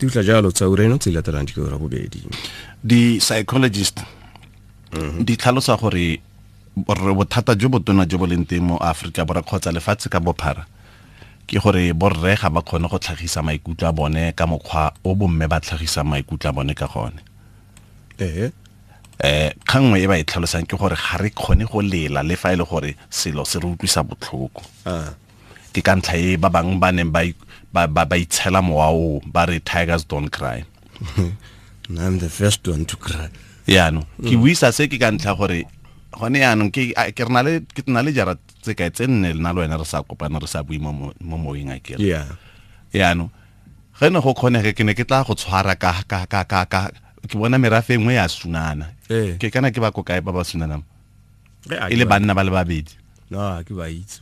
Di utla jalo tsa ureno tse di latelang di ke ura bobedi. Di-psychologist di tlhalosa gore bothata jo botona jo bo leng teng mo Aforika Borwa kgotsa lefatshe ka bophara ke gore borre ga ba kgone go tlhagisa maikutlo a bone ka mokgwa o bomme ba tlhagisang maikutlo a bone ka gone. Kgang nngwe e ba e tlhalosang ke gore ga re kgone go lela le fa e le gore selo se re utlwisa botlhoko. Ke ka ntlha e ba bangwe ba neng ba itshela mowa oo, ba re tigers don't cry. I'm the first one to cry. Yaanong ke buisa se ke ka ntlha gore gone yaanong ke na le jara tse kae tse nne le nna le wena re sa kopana re sa bue mo moweng a kere. Yaanong ge ne go kgonege ke ne ke tla go tshwara ka ke bona merafe e nngwe ya sunana. Ke kana ke ba ko kae ba ba sunanang? E le banna ba le babedi. No, ke ba itse.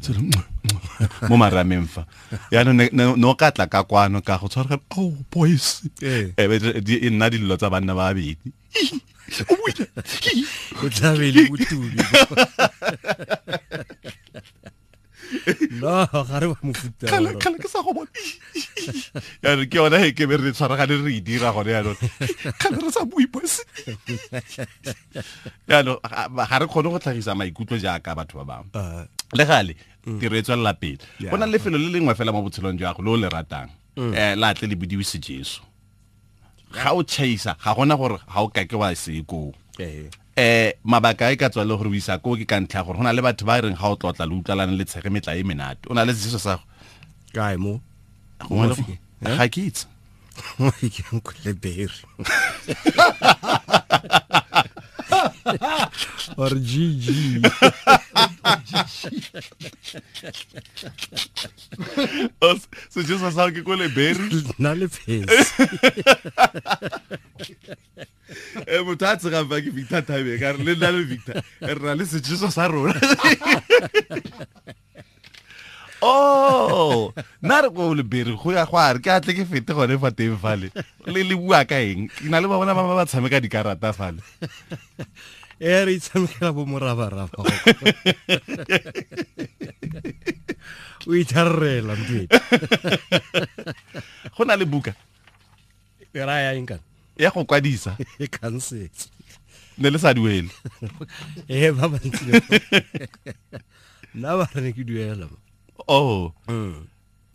Mo marameng fa. Yaanong no ka tla ka kwano ka go tshwara oh boys. E nna dillo tsa banna ba babedi. O tla be le botubi. No, ga re ba mofuta. Kgale ke sa go bona. Yaanong ke yona e ke be re tshwaragane re e dira gone yaanong. Kgale re sa bue boys. Yaanong ga re kgone go tlhagisa maikutlo jaaka batho ba bangwe. Le gale tiro e tswelela pele. Go na le lefelo le lengwe fela mo botshelong jwa gago le o le ratang. La tle le bodiwe sejeso. Ga o chaisa ga gona gore ga o kake wa se koo. Mabaka e ka tswa le gore o isa koo ke ka ntlha gore go na le batho ba reng ga o tlotla le utlwalane le tshege metla e menate. O na le sejeso sa go kae mo? Ga ke itse. Ke nkole berry. Or GG. Sejeso sa ke kole berry. Nna le phesi. Motho a tsegang fa ke Victor Thabe ka re le nna le Victor re na le sejeso sa rona. Oh, nna re ko le berry go ya go a re ke atle ke fete gone fa teng fale. Le le bua ka eng? Ke na le ba bona ba ba tshameka dikarata fale. Re itshamekela bo morabaraba. O itharela mntwe. Go na le buka. E raya eng kana? Ya go kwadisa. E khansetse. Ne le sa duele. Ba bantsi. Nna ba re ke duela. Oh.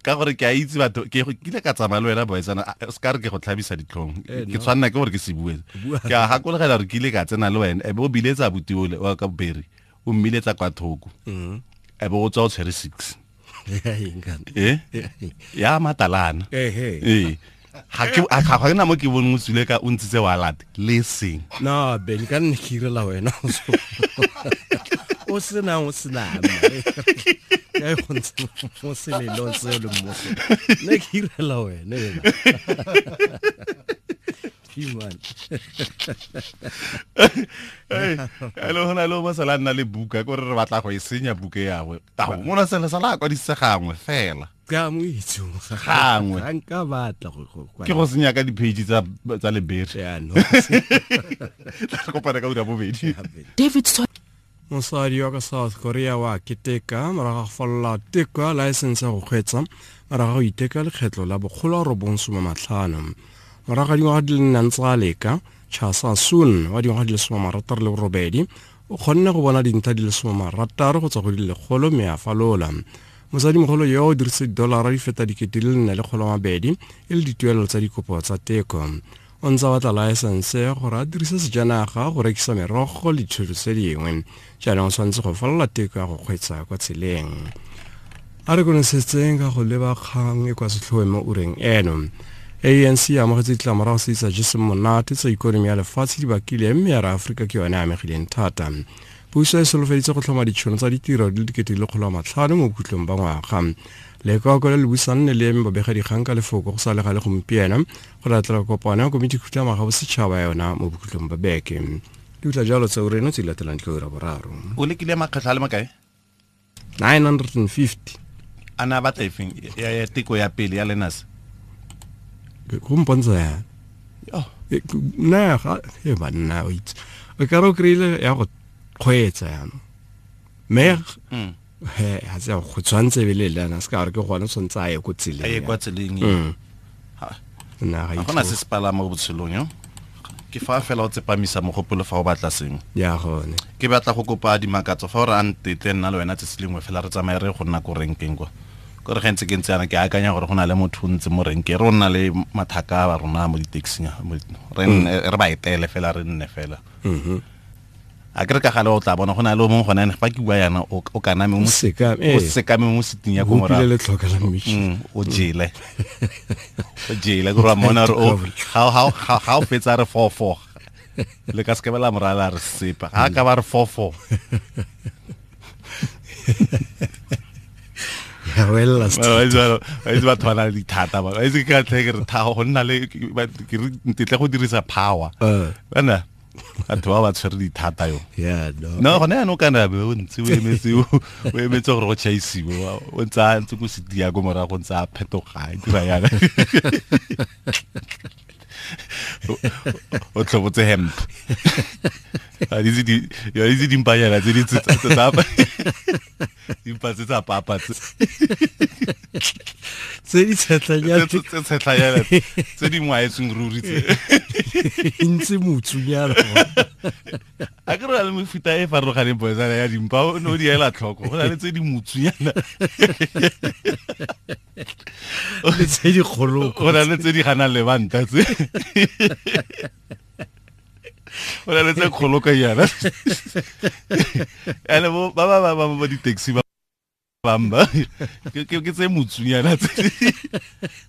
Ka gore ke a itse batho ke kile ka tsamaya le wena boetsana se ka re ke go tlhabisa ditlhong. Ke tshwanna ke gore ke se bue. Ke a gakologela gore ke ile ka tsena le wena e be o biletsa abuti ole wa ka Berry o mmiletsa kwa thoko. E be o tswa o tshwere 6. Ya matalana. Ga ke na mo ke boneng o tswile ka o ntshitse wallet le seng. No, Ben ka nne ke irela wena. O sena o sena. Ke go ntse mo selelong seo le mmoso. Ne ke irela wena ena. Human. Hello, hona le mo sala nna le buka gore re batla go e senya buka ya gwe. Ta mo na sele sala kwa disegangwe fela. Ka mo itse gangwe. Ga nka batla go ke go senya ka di-page tsa lebere. Ya no. Tla kopana ka ura bobedi. David Mosadi wa ka South Korea wa keteka morago ga go falola teko ya laesense ya go kgweetsa morago ga go iteka lekgetlo la 195. Morago ga dingwaga di le nne ntse a leka, Cha Sa-soon wa dingwaga di le 68 o kgonne go bona dintlha di le 60 go tswa go di le 100 mme a falola. Mosadimogolo yo o dirisitse didolara di feta 4,200 e le dituelo tsa dikopo tsa teko. O ntse a batla laesense gore a dirise sejanaga go rekisa merogo le dithoto tse dingwe. Jaanong o tshwanetse go falola teko ya go kgweetsa kwa tseleng. A re konosetseng ka go leba kgang e kwa setlhoeng mo ureng eno. ANC e amogetse ditlamorago tse di sa jeseng monate tsa ikonomi ya lefatshe di bakile mme ya re Aforika ke yone e amegileng thata. Puso e solofeditse go tlhoma ditšhono tsa ditiro di le 500,000 mo bokhutlong ba ngwaga. Lekoko le le busang le eme babegadikgang ka lefoko go sa le gale gompieno go latela kopano ya komiti khutlamaga bosetšhaba yona mo bokhutlong ba beke. Di utla jalo tsa ureno tse di latelang tlo ura boraro. O lekile makgetlho a le makae? 950. A na batla efeng ya teko ya pele ya lenas? Go mpontsha ya. Oh. Nna ga e banna o itse. O ka re o kry-ile ya go kgweetsa jaanong. Mme he ga se go tshwanetse be le lena se ka gore ke gone tshwanetse a ye ko tseleng. A ye kwa tseleng. Nna ga Ga gona se se palama mo botshelong yo. Ke fa fela o tsepamisa mogopolo fa o batla sengwe. Ya gone. Ke batla go kopa dimakatso fa o re a ntetle nna le wena tsatsi lengwe fela re tsamaye re go nna ko renkeng kwa. Kore ge ntse ke ntse yana ke akanya gore go na le motho o ntse mo renkeng, re o nna le mathaka a rona mo di-taxing re ba etele fela re nne fela. A ke re ka gale o tla bona go na le o mongwe gone ene fa ke bua yana o kaname o sekame mo seting ya ko morago. Hopile letlhoka la mmitšhi. O jele. O jele ke re wa mmona gore ga o fetsa re 4-4. Le ka seke la morala re sepa. Ga ka ba re 4-4. Ya wela Wa itse batho ba na le dithata ba. Wa itse ke ka tlhe ke re thago go nna le ke re ntetle go dirisa power. Bana batho ba ba tshwere dithata yo. Yeah, no. No, gone jaanong kana be o ntse o emetse o emetse gore go tšhaisiwe, o ntse a ntse ko setia ko morago ntse a phetoga a dira yana. O tlhobotse hemp. A ditse di ya itse dimpanyana tse di tsa dimpa tse tsa papa tse. Tse di tshetlanyana. Tse tshetlanyana tse di ngwaetsweng ruri tse. Ntse motsunyana. A ke re le mefuta e farologaneng boetsana ya dimpa o ne o di ela tlhoko. Go na le tse di motsunyana. Le tse di kgoloko. Go na le tse di ganang lebanta tse. Go na le tse kgoloko yana. Ene bo ba ba ba ba di-taxi ba bamba ke tse motsunyana tse.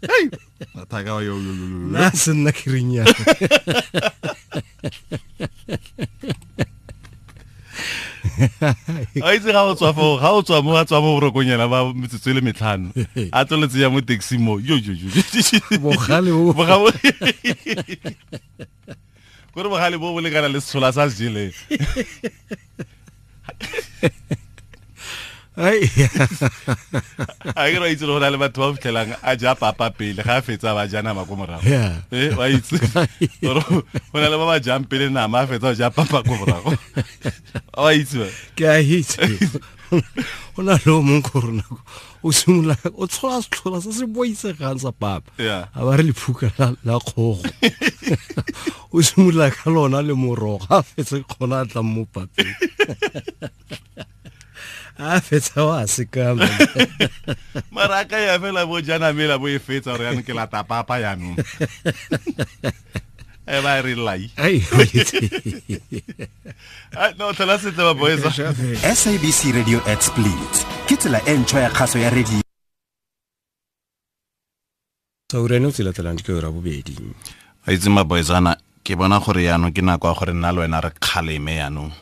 Hei, mathaka yo yo yo. Nna se nna ke reng yana. A itse ga o tswa foo, ga o tswa mo a tswa mo borokong yana ba metsotso e le metlhano. A tsweletse ya mo taxi mo. Yo yo yo. Bogale bo. Bogale. Kore bogale bo bo lekana le setshola sa se jeleng. Ai. A ke re itse go na le batho ba fitlhelang a ja papa pele ga a fetsa ba ja nama ko morago. Wa itse. Gore go na le ba ba jang pele nama a fetsa ba ja papa ko morago. Wa itse ba? Ke a itse. Go na le o mongwe ko rona o simolola o tshola setlhola se se boitsegang sa papa. A ba re lephuka la kgogo. O simolola ka lona le morogo a fetse kgona a tlang mo papeng. A fetsa wa sekama. Mara ka ya fela bo jana mela bo e fetsa gore yanong ke lata papa yanong. E ba re lai. Ai. No tlhola sentle ba boys. SABC Radio at Split. Ke tsela e ntšhwa ya kgaso ya radio. Saureno tsela latelang ke ora bobedi. A itse ma boysana ke bona gore yanong ke nako ya gore nna le wena re kgaleme yanong.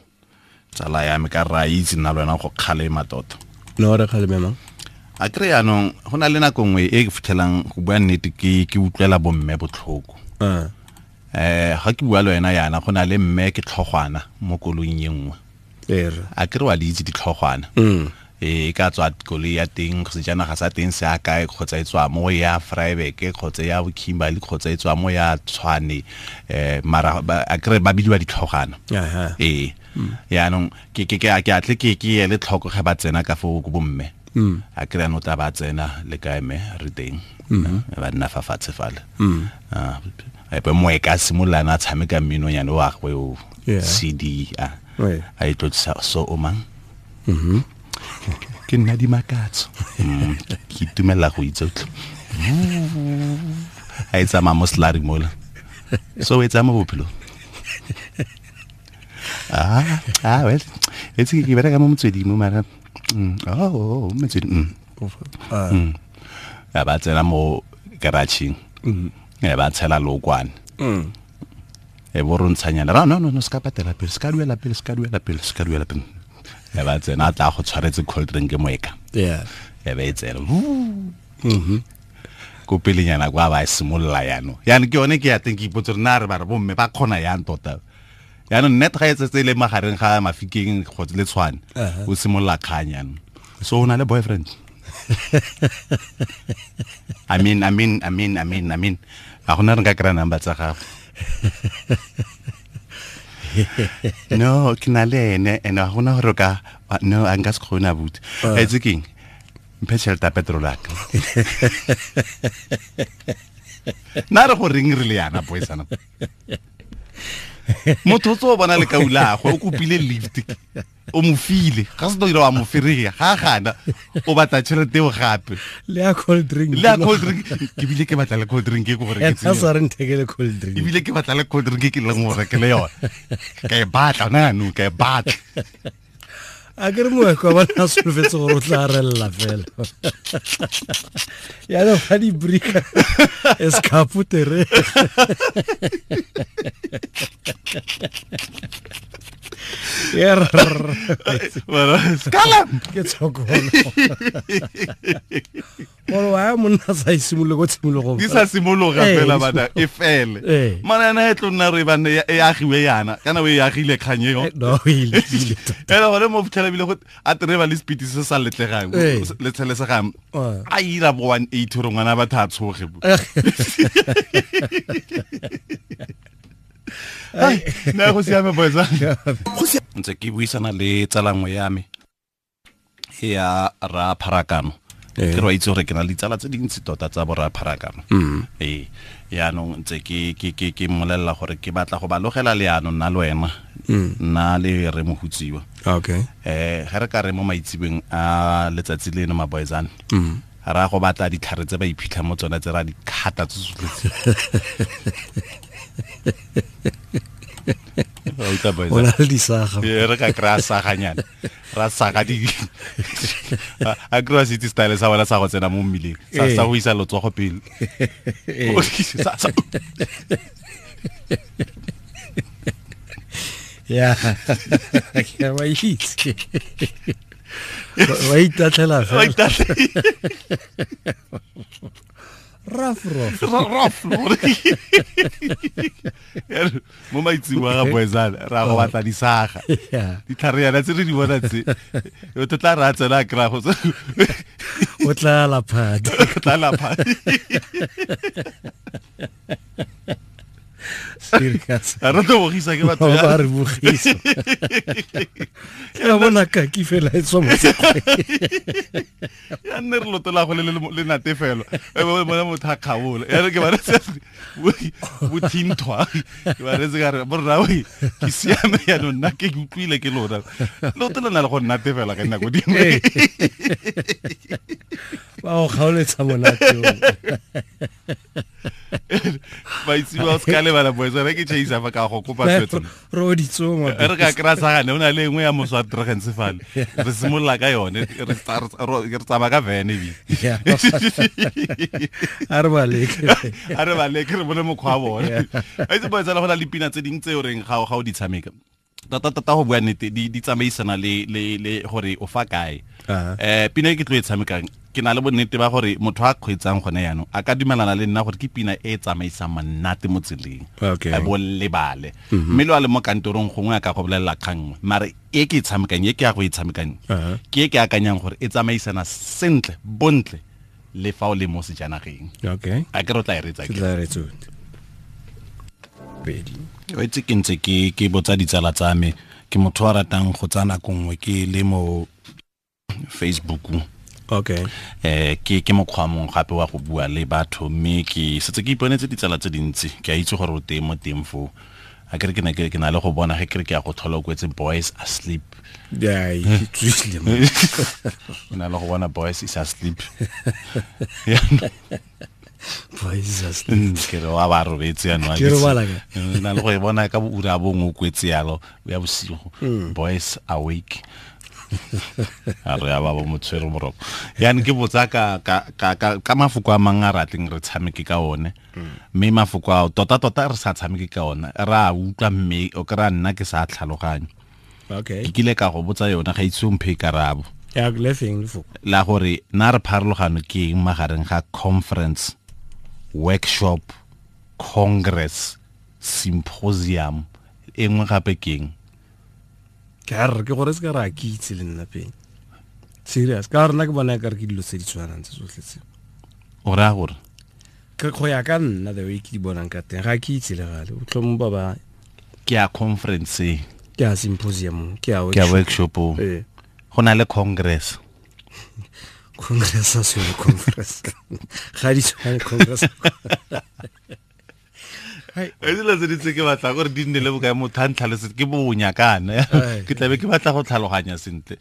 Tsala ya me ka ra itse nna le wena go kgalema tota. No re kgaleme mang? A kry yanong go na le nako nngwe e ke fitlhelang go bua nnete ke utlwela bomme botlhoko. Ga ke bua le wena yana go na le mme ke tlhogwana mo koloing e nngwe. A kry wa le itse ditlhogwana. E ka tswa koloi ya teng sejanaga sa teng se a kae kgotsa e tswa mo ya Vryburg kgotsa ya Kimberley kgotsa e tswa mo ya Tshwane mara a kry ba bidiwa ditlhogwana. Yaanong ke a tle ke ele tlhoko ge ba tsena ka foo ko bomme. A kry ano tla ba tsena le kae mme re teng. Ba nna fa fatshe fale. Epe moeka a simolola a tshameka mminonyane wa gagwe o CD a e tlotsisa so o mang. Ke nna Dimakatso. Ke itumelela go itse utlwe. A e tsamaya mo slurry mola. So e tsamaya mo bophelong. Well, it's ke bereka mo motsweding mo mara. Oh, motsweding. Ya ba tsena mo garageng. Ya ba tshela lokwane. E bo rontshanyana. No, ska patela pele, ska duela pele, ska duela pele, ska duela pele. Ya ba tsena a tla go tshwaretse cold drink moeka. Yeah. Ya ba e tsena. Ko pelenyana kwa ba simolola yano. Yana ke yone ke ya teng ke ipotse re na re ba re bomme ba kgona yang tota. Yaanong net ga e tsetse le magareng ga Mafikeng kgotsa le Tshwane o simolola kgang yanong. So o na le boyfriend? I mean a gona re nka kry-a number tsa gago. No, ke na le ene and a gona gore ka no a nka se kgone abuti. Itse keng? Mphe tšhelete ya petrol ya ka. Nna re go reng re le yana boysana. Motho o tso bona le kaulagwe o kopile lift o mo file ga se dira wa mo ferea ga gana o batla tšhelete eo gape le ya cold drink le ya cold drink ke bile ke batla le cold drink e ke gore ke a sa re nthekele cold drink ebile ke batla le cold drink ke leng gore ke le yone ka e batla ona jaanong ka e batla a ke re moeko wa bona a solofetse gore o tla relela fela yaanong ga dibrika escaputere ke tshokolo gore wa ya monna sa e simolole ko tshimologong di sa simologa fela bana e fele mana ena e tlo nna re bane e agiwe yana kana o e agile kgang eo no e lekile ene gone mo fitlhela bile go a tereba le speed se sa letlegang le tshelesegang a ira bo 180 gore ngwana batho a tshoge nna go siame boetsa ntse ke buisana le tsalangwe ya me ya ra pharakano ke re itse gore ke na le ditsala tse dintsi tota tsa borra pharakano ee yaanong ntse ke ke ke ke mmolelela gore ke batla go ba logela leano nna le wena nna le re mohutsiwa okay ge re ka re mo maitsebeng a letsatsi leno maboyzane ra go batla ditlhare tse ba iphitlha mo tsone tse ra di khata tse tsotlhe o na le disaga re ka kry-a saganyana ra saga di a kry-a se itse style sa bona sa go tsena mo mmileng sa go isa letsogo pele ya ke wa itse wa itatlhela fela rough rough rough mo maitsing wa ga boezana ra go batla disaga ditlhare yana tse re di bona tse o tla ra tsena a kry-a go o tla laphadi o tla laphadi serious a re tlo bogisa ke batho ba re bogisa ke a bona kaki fela e tswa mo ya nne re lotola go le natefelo e bona motho a kgabola ya re ke ba re bothinthwa ke ba retse ka re borra we ke siame yaanong nna ke utlwile ke lona loto le na le go nnatefela ka dinako dingwe ba go kgaoletsa monate Ba itse ba se ka lebala boetsa re ke chaisa fa ka go kopa swetso re o ditsoma re ka kry-a sagane o na le engwe ya moswa tregentse fale re simolola ka yone re tsamaya ka vene ebile a re baleke a re baleke re bone mokgwa wa bone a itse boetsa le go na le pina tse dingwe tse o reng ga o di tshameka tota tota go bua nnete di tsamaisana le le le gore o fa kae pina e ke tlo e tshamekang ke na le bonnete ba gore motho a kgweetsang gone yaanong a ka dumelana le nna gore ke pina e e tsamaisang monate mo tseleng a bo lebale mme lo a le mo kantorong gongwe a ka go bolelela kgang nngwe mare e ke e tshamekang e ke ya go e tshamekang ke e ke akanyang gore e tsamaisana sentle bontle le fa o le mo sejanageng okay a ke re o tla e retsa ke tla retsa pedi o itse ke ntse ke ke botsa ditsala tsa me ke motho wa ratang go tsaya nako nngwe ke le mo Facebook okay ke ke mokgwa mongwe gape wa go bua le batho mme ke setse ke iponetse ditsala tse dintsi ke a itse gore o teng mo teng foo a kere ke ne ke na le go bona ge kere ke ya go tlhola o kwetse boys asleep yeah ke tswile mo ke na le go bona boys is asleep boys is asleep ke re wa ba robetse yanong ke robala ka na le go e bona ka ura bongwe o kwetse yalo ya bosigo boys awake a re ya ba bo motshwere moroko yani ke botsa ka ka ka ka mafoko a mang a ratleng re tshameke ka one mme mafoko ao tota tota re sa tshameke ka ona re a utlwa mme o kry-a nna ke sa tlhaloganye okay ke kile ka go botsa yona ga itse o mphe karabo ya le feng lefoko la gore na re pharologano ke eng magareng ga conference workshop congress symposium e nngwe gape ke eng ke a re ke gore se ka re a ke itse le nna pele serious ka rena ke bona ka re ke dilo tse di tshwanang tse tsotlhe tse o raya gore ke go ya ka nna the way ke di bonang ka teng ga ke itse le gale o tlhomo ba ba ke ya conference ke ya symposium ke ya ke ya workshop ee go na le congress Congress a se conference. Ga di tshwane congress. E dilo tse di tse ke batla gore di nne le bokae motho a ntlhalosetse ke bonya kana ke tlabe ke batla go tlhaloganya sentle.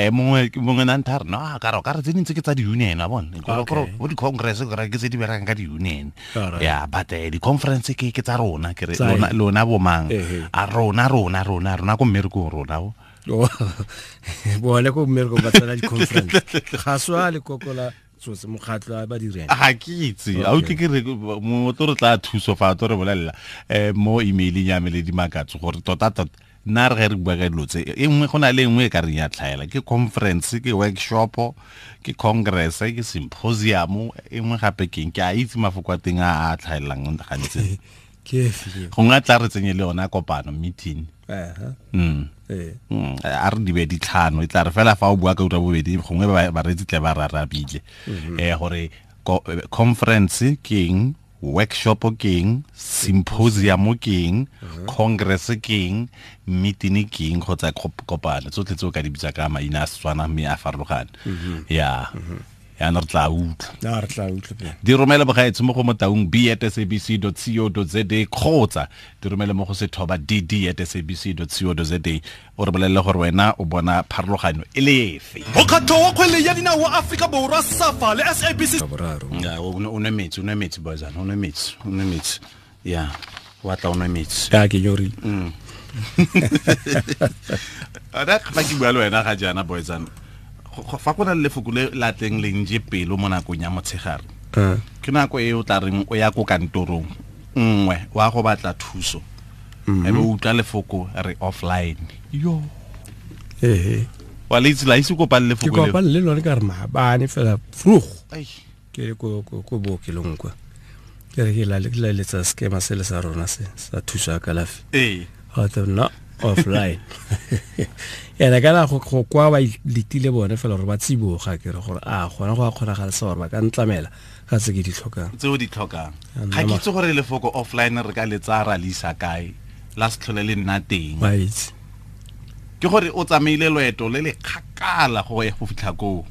Mongwe na ntha re no ka re ka re tse dintse ke tsa di-union a bone bo di-congress ke tse di berekang ka di-union ya but di-conference ke tsa rona ke re lona bomang a rona rona rona rona ko mmerekong rona o bone ko mmerekong ba tsena di-conference ga swa lekoko la tsotse mokgatlo a ba direng ga ke itse a utlwe ke re motho re tla thuso fa to re bolelela mo emaileng ya me le dimakatso gore tota tota nna re ge re bua ka dilo tse e nngwe go na le nngwe e ka reng ya tlhaela ke conference ke workshop ke congress ke symposium e nngwe gape keng ke a itse mafoko a teng a a tlhaelang gantsi ke efe gongwe a tla re tsenye le yona kopano meeting a re di be ditlhano e tla re fela fa o bua ka ura bobedi gongwe bareetsi tle ba rarabile gore conference ke eng, workshop ke eng, symposium ke eng, congress ke eng, meeting ke eng kgotsa kopano tsotlhe tse o ka di bitsa ka maina a Setswana mme a farologane ya yaanong re tla utlwa re tla utlwa di romele bogaetsho mo go motaung b@sabc.co.za kgotsa di romele mo go sethoba dd@sabc.co.za o re bolelele gore wena o bona pharologanyo e le efe. Mokgatlo wa kgwele ya dinao wa Afrika Borwa SAFA le SABC o nwe metsi o nwe metsi boyzana o nwe metsi o nwe metsi ya wa tla o nwe metsi ya ke nyori ara fa ke bua le wena ga jaana boyzana fa go na le lefoko le la tleng le nje pelo mo nakong ya motshegare ke nako e o tla reng o ya ko kantorong nngwe wa go batla thuso e be o utlwa lefoko re offline yo wa le itse la itse kopane lefoko le ke kopane le lone ka re maabane fela vroeg ke ko ko bookelong kwa ke re ke la letsa skema se le sa rona se sa thuso ya kalafi ga tla nna offline ene kana go kwa ba letile bone fela gore ba tsiboga ke re gore a gona go a kgonagala sa gore ba ka ntlamela ka tse ke di tlhokang tse o di tlhokang ga ke itse gore lefoko offline re ka le tsaya ra le isa kae la se tlhole le nna teng ke gore o tsamaile loeto le le kgakala go ya go fitlha koo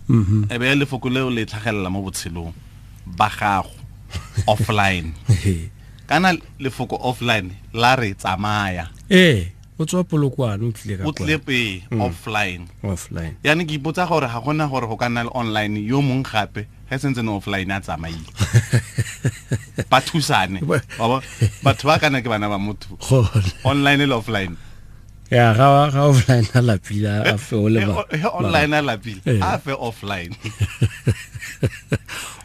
e be lefoko leo le tlhagelela mo botshelong ba gago offline kana lefoko offline la re tsamaya o tswa Polokwane o tlile ka o tlile pe offline yani ke ipotsa gore ga gona gore go ka nna le online yo mong gape ge sentse ne offline a tsamaile ba thusane batho ba kana ke bana ba motho online le offline ya ga offline a lapile a fe o le ba online a lapile a fe offline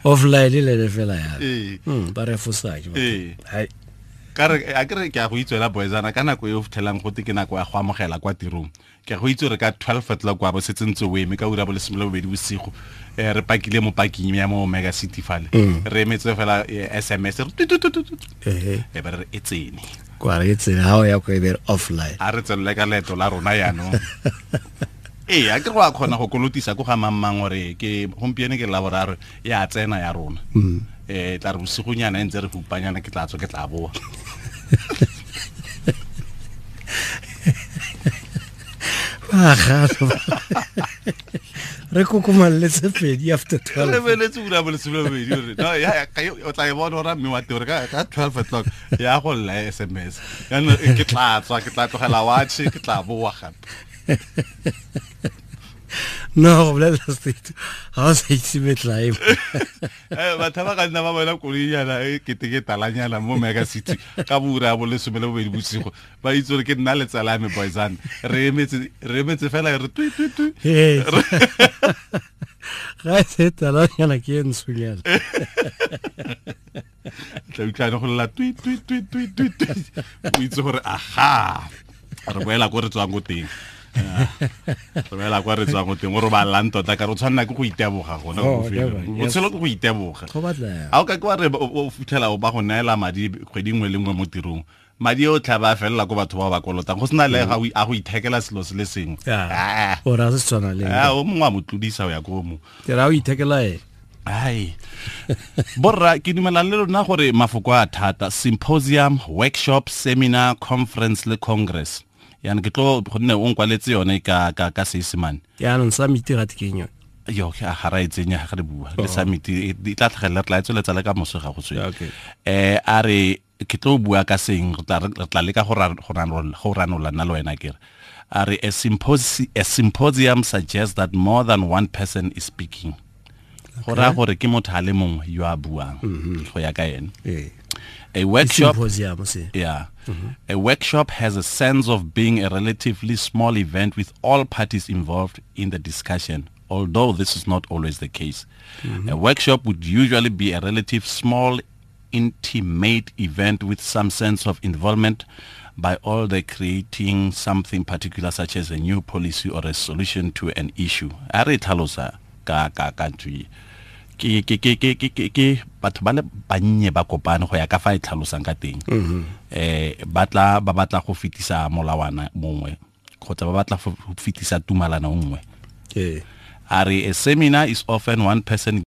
offline le fela ya ba re fosake hai ka re a ke re ke a go itswela boyzana ka nako e o fitlhelang gote ke nako ya go amogela kwa tirong ke a go itse gore ka 12 o'clock wa bo setse ntse o eme ka ura bo 12 bosigo re pakile mo parking ya mo Mega City fale re emetse fela SMS re e ba re e tsene kwa re tsene ha o ya ko e be offline a re tswelele ka leeto la rona yaanong a ke go a kgona go kolotisa ko ga mang gore ke gompieno ke laboraro ya tsena ya rona tla re bosigonyana e ntse re hupanyana ke tla tswa ke tla boa re kokomalletse pedi after 12 re beletse ura bo 12 re no ya o tla e bona ora mme wa teng ka 12 o'clock ya go lla SMS jaanong ke tla tswa ke tla tlogela watch ke tla boa gape no go bolela state ga o sa itse metlae batho ba ka nna ba bona koloinyana e kete ke talanyana mo Mega City ka boura bo 12 bosigo ba itse gore ke nna le tsala ya me boyzana re emetse fela re twi twi twi ga e se talanyana ke e ntshonyana tla utlwane go lela twi twi twi twi twi o itse gore aha re boela ko re tswang ko teng re boela kwa re tswang ko teng o robalang tota ka re o tshwanela ke go iteboga gona botshelo ke go iteboga ga o ka ke wa re o fitlhela o ba go neela madi kgwedi nngwe le nngwe mo tirong madi o tla ba felela ko batho ba ba kolotang go sena le a go ithekela selo se le sengwe o ra se tshwana le o mongwe a mo tlodisa o ya ko mo ke ra o ithekela ene ai borra ke dumela le lona gore mafoko a thata symposium workshop seminar conference le congress yana ke tlo gonne o nkwaletse yone ka ka Seesemane yaanong summit ga ke eng yone Yo ga ra e tsenya ga re bua le summit e tla tlhagelela, re tla e tsweletsa le ka moso ga go tswe. A re ke tlo bua ka seng, re tla leka go ranola nna le wena kere. A re a symposium suggests that more than one person is speaking. Go raya gore ke motho a le mongwe yo a buang go ya ka ene. A workshop, yeah. A workshop has a sense of being a relatively small event with all parties involved in the discussion, although this is not always the case. A workshop would usually be a relative small, intimate event with some sense of involvement by all the creating something particular, such as a new policy or a solution to an issue. A re tlhalosa ka ntho e. Ke batho ba le bannye ba kopane go ya ka fa e tlhalosang ka teng. Ba tla ba batla go fetisa molawana mongwe kgotsa ba batla go fetisa tumalano nngwe. A re a seminar is often one person